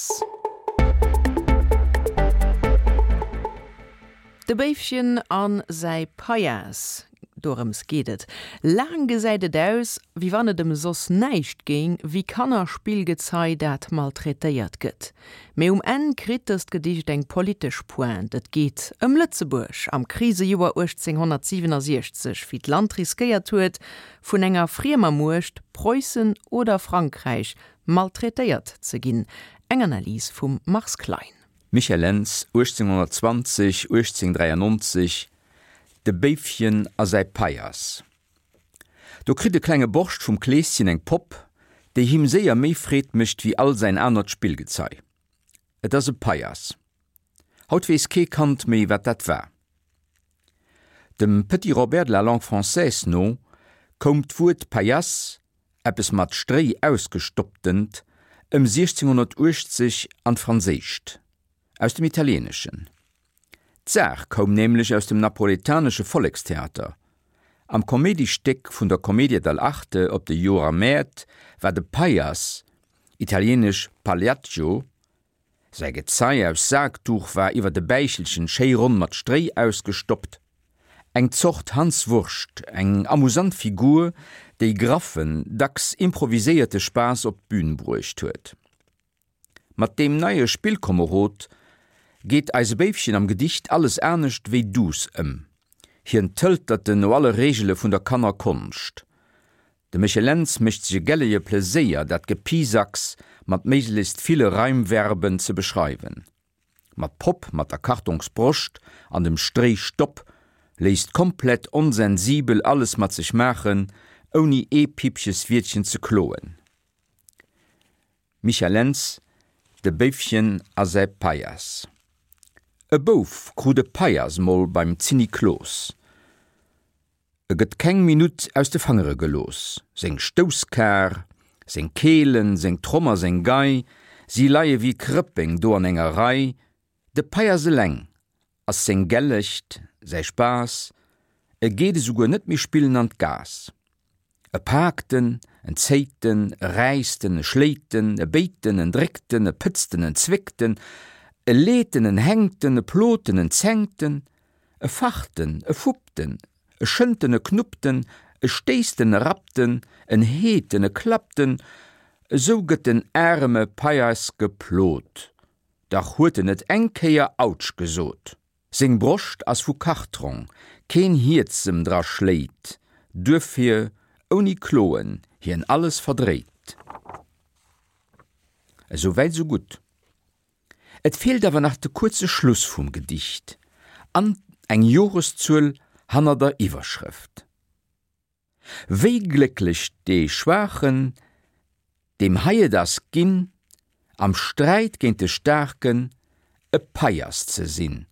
Payass. De Béifchen a säi Paias, dorëms geet et. Laang gesäit et aus, wéi wann et ëm soss näischt géing, wéi Kannerspillgezei, dat maltraitéiert gëtt. Mee um Enn kritt dëst Gedicht eng politesch Pointe, et geet ëm Lëtzebuerg am Krisejoer 1867, wéi d'Land riskéiert huet, vun enger friemer Muecht, Preussen oder Frankräich, maltraitéiert ze ginn. Eng Analys vum Mars Klein. Michel Lentz, 1820, 1893, De Béifchen a säi Paias. Do kritt e klenge Borscht vum Kleeschen eng Popp, déi him séier méi Freed mécht wéi all säin anert Spillgezei. Et ass e Paias. Haut weess kee Kand méi, wat dat war. Dem Petit Robert de la langue française no koum d'Wuert Paillasse, eppes mat Stréi ausgestopptent, ëm 1680 an d'Franséischt, aus dem Italieeneschen. D'Saach koum nämlech aus dem napoletanesche Vollekstheater. Am Koméidistéck vun der Commedia dell'arte op de Joermäert war de Paillass, italieenesch Pagliaccio, Säi Gezei aus Saakduch war iwwer de Bäichelchen schéi ronn mat Stréi ausgestoppt. Eng Zort Hans Wurscht, eng amusant Figur, déi graffen, dacks improviséierte Spaass op d'Bün bruecht huet. Mat deem neie Spillkomerod geet eise Béifchen am Gedicht alles anescht wéi duuss ëm. Hien tëltert en no alle Reegele vun der Kannerkonscht. De Michel Lentz mécht sech e gelleje Pleséier, dat Gepisacks mat méiglechst ville Reimverben ze beschreiwen. Ma d'Popp mat der Kartongsbroscht an dem Stréistopp léisst komplett onsensibel alles mat sech maachen, ouni ee Pippcheswiertchen ze kloen. Michel Lentz, De Béifchen a säi Paias. E Bouf krut e Paias mol beim Zinniklos. E gëtt keng Minutt aus de Fangere gelooss. Seng Stousskar, seng Keelen, seng Tromm a seng Gei, si leie wéi Krëppeng do an enger Rei. De Paias eleng ass seng Gellecht, säi Spaass, e geet esouguer net méi spillen an d'Gaass. E paakt en, en zéit en, e räisst en, e schléit en, e béit en, en dréckt en, e pëtzt en, en zwéckt en, e leet en, en hänkt en, e plot en, en zänkt en, e facht en, e fuppt en, e schënnt en, e knuppt en, e stéisst en, e rappt en, en heet en, e klappt en, esou gëtt den aareme Paias geplot, dach huet en net eng Kéier Autsch gesot. Seng Broscht ass vu Kartrong, keen Hierz em dra schléit, duerfir ouni Kloen hien alles verdréit. Esou wäit esou gutt. Et feelt awer nach de kuerze Schluss vum Gedicht an eng Joreszuel hanner der Iwwerschrëft. Wéi glécklech dee Schwaachen, deem hei et ass ginn, am Sträit géint de Staarken e Paiass ze sinn.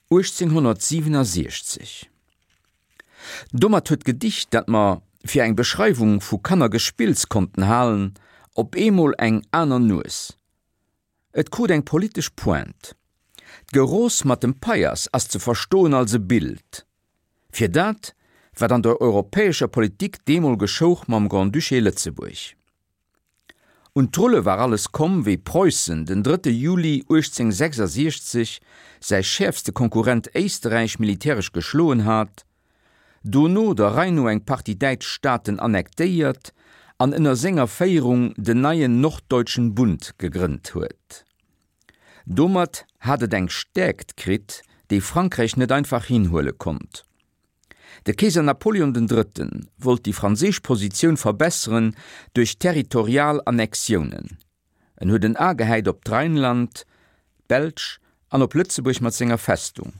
1867. Domat huet d'Gedicht, dat mer fir eng Beschreiwung vu Kannergespills konnten halen, op eemol eng aner Nues. Et krut eng politesch Pointe. D'Geroos mat dem Paiass ass ze verstoen als e Bild fir dat, wat an der europäescher Politik deemol geschouch mam Grand-Duché Lëtzebuerg. Un d'Rulle war alles komm, wéi Preussen den drëtte Juli 1866 säi schäerfste Konkurrent Éisterräich militäresch geschloen hat, dono der Rei no eng Partie däitsch Staaten annektéiert an ënner senger Féierung den neien Norddeutschen Bund gegrënnt huet. Domat hat et eng Stäerkt kritt, déi Frankräich net einfach hinhuele konnt. De Keeser Napoleon den Drëtten wollt déi franséisch Positioun verbesseren duerch territorial Annexiounen. En huet en A gehäit op d'Rheinland, d'Belsch an op Lëtzebuerg mat senger Festung.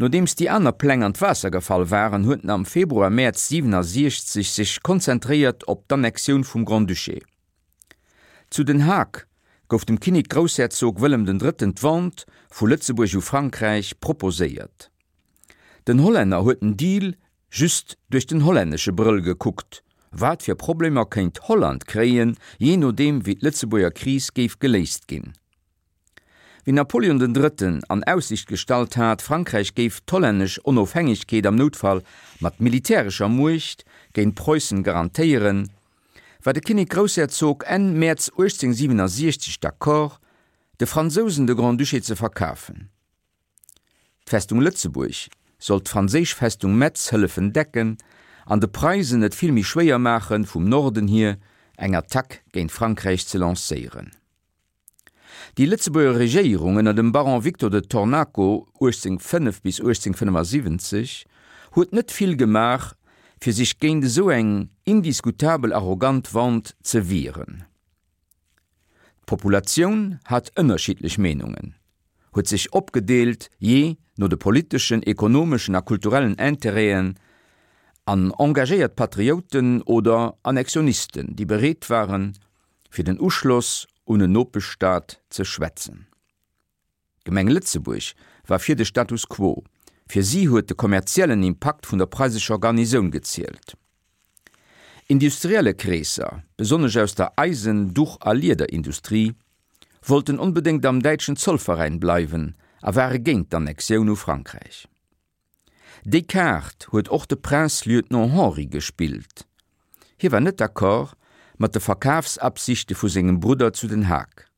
Nodeems déi aner Pläng an d'Waasser gefall waren, huet en am Februar-Mäerz 67 sech konzentréiert op d'Annexioun vum Grand-Duché. Zu Den Haag gouf dem Kinnek-Groussherzog Wëllem den Drëtten d'Vente vu Lëtzebuerg u Frankräich proposéiert. Den Hollänner huet den Deal just duerch den hollännesche Brëll gekuckt, wat fir Problemer kéint Holland kréien, jee nodeem wéi d'Lëtzebuerger Kris géif geléist ginn. Wéi Napoleon den Drëtten an Aussicht gestallt hat, Frankräich géif d'hollännesch Onofhängegkeet am Noutfall mat militärescher Muecht géint Preussen garantéieren, war de Kinnek-Groussherzog Enn Mäerz 1867 d'accord, de Fransousen de Grand-Duché ze verkafen. D'Festung Lëtzebuerg sollt d'franséisch Festung Metz hëllefen decken an de Preisen et vill méi schwéier maachen, vum Norden hier eng Attack géint Frankräich ze lancéieren. Déi Lëtzebuerger Regéierung ënner dem Baron Victor de Tornaco, 1805 bis 1875, huet net vill gemaach, fir sech géint esou eng indiskutabel arrogant Vente ze wieren. D'Populatioun hat ënnerschiddlech Meenungen, huet sech opgedeelt jee no de politeschen, ekonomeschen a kulturellen Intérêten an engagéiert Patrioten oder Annexionisten, déi bereet waren, fir den Uschloss un en Nopeschstaat ze schwätzen. D'Gemeng Lëtzebuerg war fir de Status quo, fir si huet de kommerziellen Impakt vun der preisescher Garnisoun gezielt. Industrielle Kreesser, besonnesch aus der Eisen-, Duch a Liederindustrie, wollten onbedéngt am däitschen Zollveräin bleiwen a ware géint d'Annexioun u Frankräich. Déi Kaart huet och de Prince-Lieutenant Henri gespillt. Hie war net d'accord mat de Verkafsabsichte vu sengem Brudder zu Den Haag.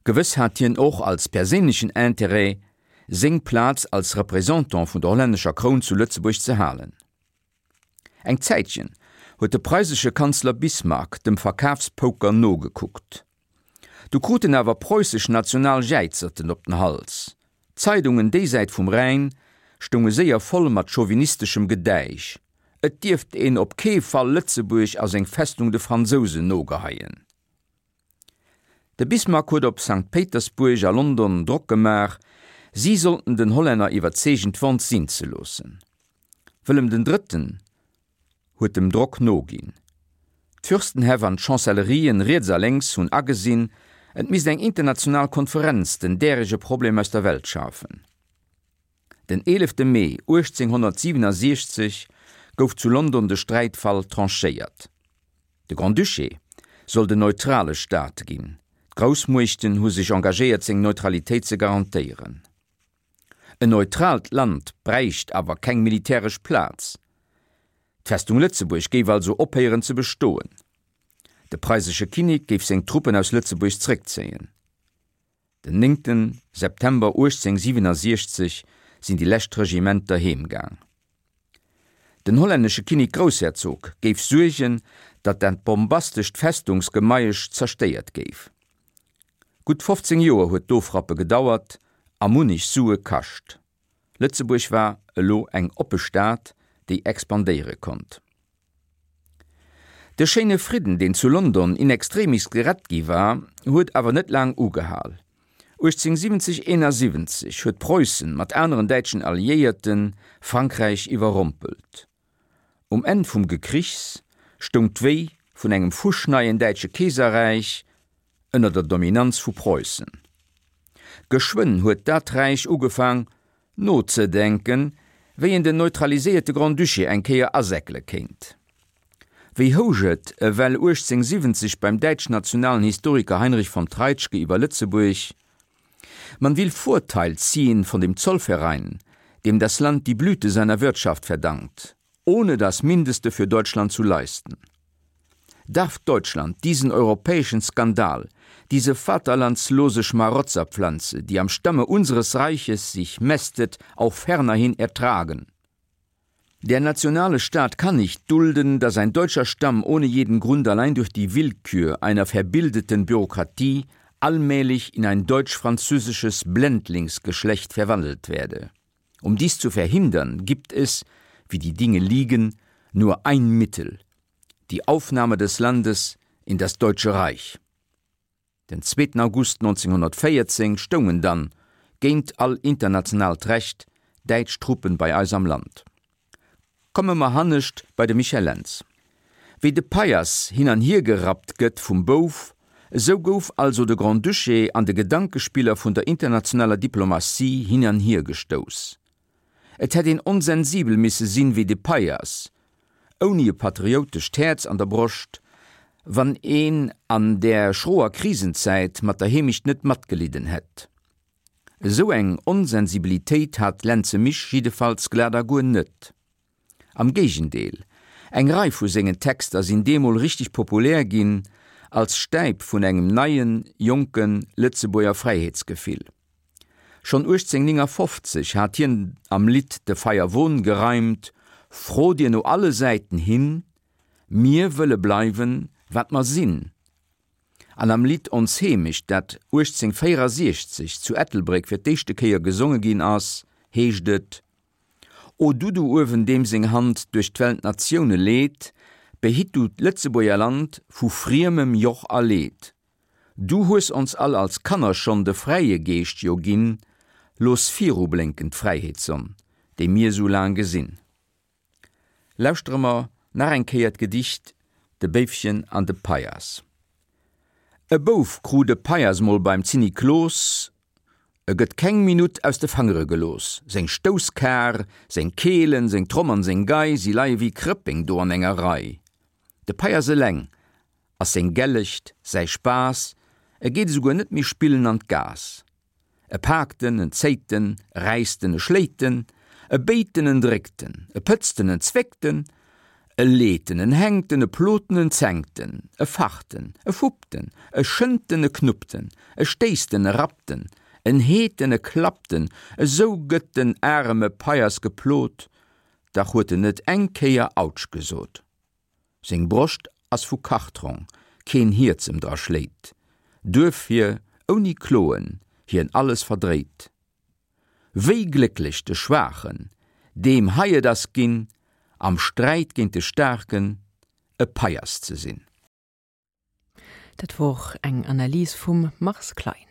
Gewëss hat hien och als perséinlechen Intérêt, seng Plaz als Représentant vun der hollännescher Kroun zu Lëtzebuerg ze halen. Eng Zäitchen huet de preisesche Kanzler Bismarck dem Verkafspoker nogekuckt. Du krut en awer preussesch national Jäizerten op den Hals. D'Zeidungen déisäit vum Rhäin stounge séier voll mat chauvinisteschem Gedäisch, et dierft een op kee Fall Lëtzebuerg a seng Festung de Fransousen nogeheien. De Bismarck huet op Sankt Péitersbuerg a London Drock gemaach, si sollten den Hollänner iwwerzeegen d'Vente sinn ze loossen. Wëllem den Drëtten huet dem Drock noginn. D'Fürstenhäff an d'Chancellerien riets a lénks hunn agesinn, et misst eng international Konferenz den därege Problem aus der Welt schafen. Den 11 Mee 1867 gouf zu London de Sträitfall tranchéiert. De Grand-Duché sollt en neutrale Staat ginn, d'Groussmuechten hu sech engagéiert seng Neutralitéit ze garantéieren. En neutraalt Land bräicht awer keng militäresch Plaz. D'Festung Lëtzebuerg géif also ophéieren ze bestoen. De preisesche Kinnek géif seng Truppen aus Lëtzebuerg zréckzéien. Den néngten September 1867 sinn déi lescht Regimenter heem gaang. Den hollännesche Kinnek-Groussherzog géif suergen, datt dat bombastescht Festungsgemeiesch zerstéiert géif. Gutt 15 Joer huet d'Ofrappe gedauert a munnech Sue kascht. Lëtzebuerg war elo eng oppe Stad, déi expandéiere konnt. De schéine Fridden, deen zu London in extremis gerett gi war, huet awer net laang ugehal. 1870, 71 huet Preussen mat aneren däitschen Alliéierte Frankräich iwwerrompelt. Um Enn vum Gekrichs stoung d'Wéi vun engem fuschneien däitsche Keeserräich ënner der Dominanz vu Preussen. Geschwënn huet dat Räich ugefaang nozedenken, wéi een den neutraliséierte Grand-Duché eng Kéier asäckele kéint. Wéi housch et ewell 1870 beim däitsch-nationalen Historiker Heinrich von Treitschke iwwer Lëtzebuerg, Man will Vorteil ziehen von dem Zollverein, dem das Land die Blüte seiner Wirtschaft verdankt, ohne das Mindeste für Deutschland zu leisten. Darf Deutschland diesen europäischen Skandal, diese vaterlandslose Schmarotzerpflanze, die am Stamme unseres Reiches sich mästet, auch fernerhin ertragen? Der nationale Staat kann nicht dulden, dass ein deutscher Stamm ohne jeden Grund allein durch die Willkür einer verbildeten Bürokratie allmählich in ein deutsch-französisches Blendlingsgeschlecht verwandelt werde. Um dies zu verhindern, gibt es, wie die Dinge liegen, nur ein Mittel: die Aufnahme des Landes in das Deutsche Reich. Den zweeten August 1914 stoungen dann, géint all internationaalt Recht, däitsch Truppen bei eis am Land. Komme mer hannescht bei de Michel Lentz. Wéi de Paillasse hin an hier gerappt gëtt vum Bouf, esou gouf also de Grand-Duché an de Gedankespiller vun der internationaler Diplomatie hin an hier gestouss. Et hätt een onsensibel misse sinn wéi de Paillasse, ouni e patrioutescht Häerz an der Broscht, wann een an där schroer Krisenzäit mat der Heemecht net matgelidden hätt. Esou eng Onsensibilitéit hat Lentze Misch jiddefalls glat a guer net. Am Géigendeel, Eng Rei vu sengen Texter sinn deemol richteg populär ginn, als Stäip vun engem neien, jonke Lëtzebuerger Fräiheetsgefill. Schonn 1859 hat hien am Lidd De Feierwon gereimt, Fro dir no alle Säiten hin, mir wëlle bleiwen, wat mer sinn. An am Lidd Ons Heemecht, dat 1864 zu Ettelbréck fir d'éischte Kéier gesonge ginn ass, heescht et, O du do uewen, deem seng Hand duerch d'Welt d'Natioune leet, behitt du d'Lëtzebuerger Land vu friemem Joch a Leed. Du hues ons all als Kanner schonn de fräie Geescht jo ginn, looss virublénken d'Fräiheetssonn, déi mir sou laang gesinn. Lauschtere mer nach eng Kéier d'Gedicht De Béifchen an de Paias. E Bouf krut e Paias mol beim Zinniklos, E gëtt keng Minutt aus de Fangere gelooss. Seng Stousskar, seng Keelen, seng Tromm an seng Gei, si leie wéi Krëppeng do an enger Rei. De Paias eleng ass seng Gellecht, säi Spaass, e geet esouguer net méi spillen an d'Gaass. E paakt en, en zéit en, e räisst en, e schléit en, e béit en, en dréckt en, e pëtzt en, en zwéckt en, e leet en, en hänkt en, e plot en, en zänkt en, e facht en, e fuppt en, e schënnt en, e knuppt en, e stéisst en, e rappt en, en heet en, e klappt en, esou gëtt den areme Paiers geplot, dach huet en net eng Kéier Autsch gesot. Seng Broscht ass vu Kartrong, keen Hierz em dra schléit, duerfir ouni Kloen hien alles verdréit. Wéi glécklech de Schwaachen, deem hei et ass ginn, am Sträit géint de Staarken e Paiers ze sinn. Dat wor eng Analys vum Mars Klein.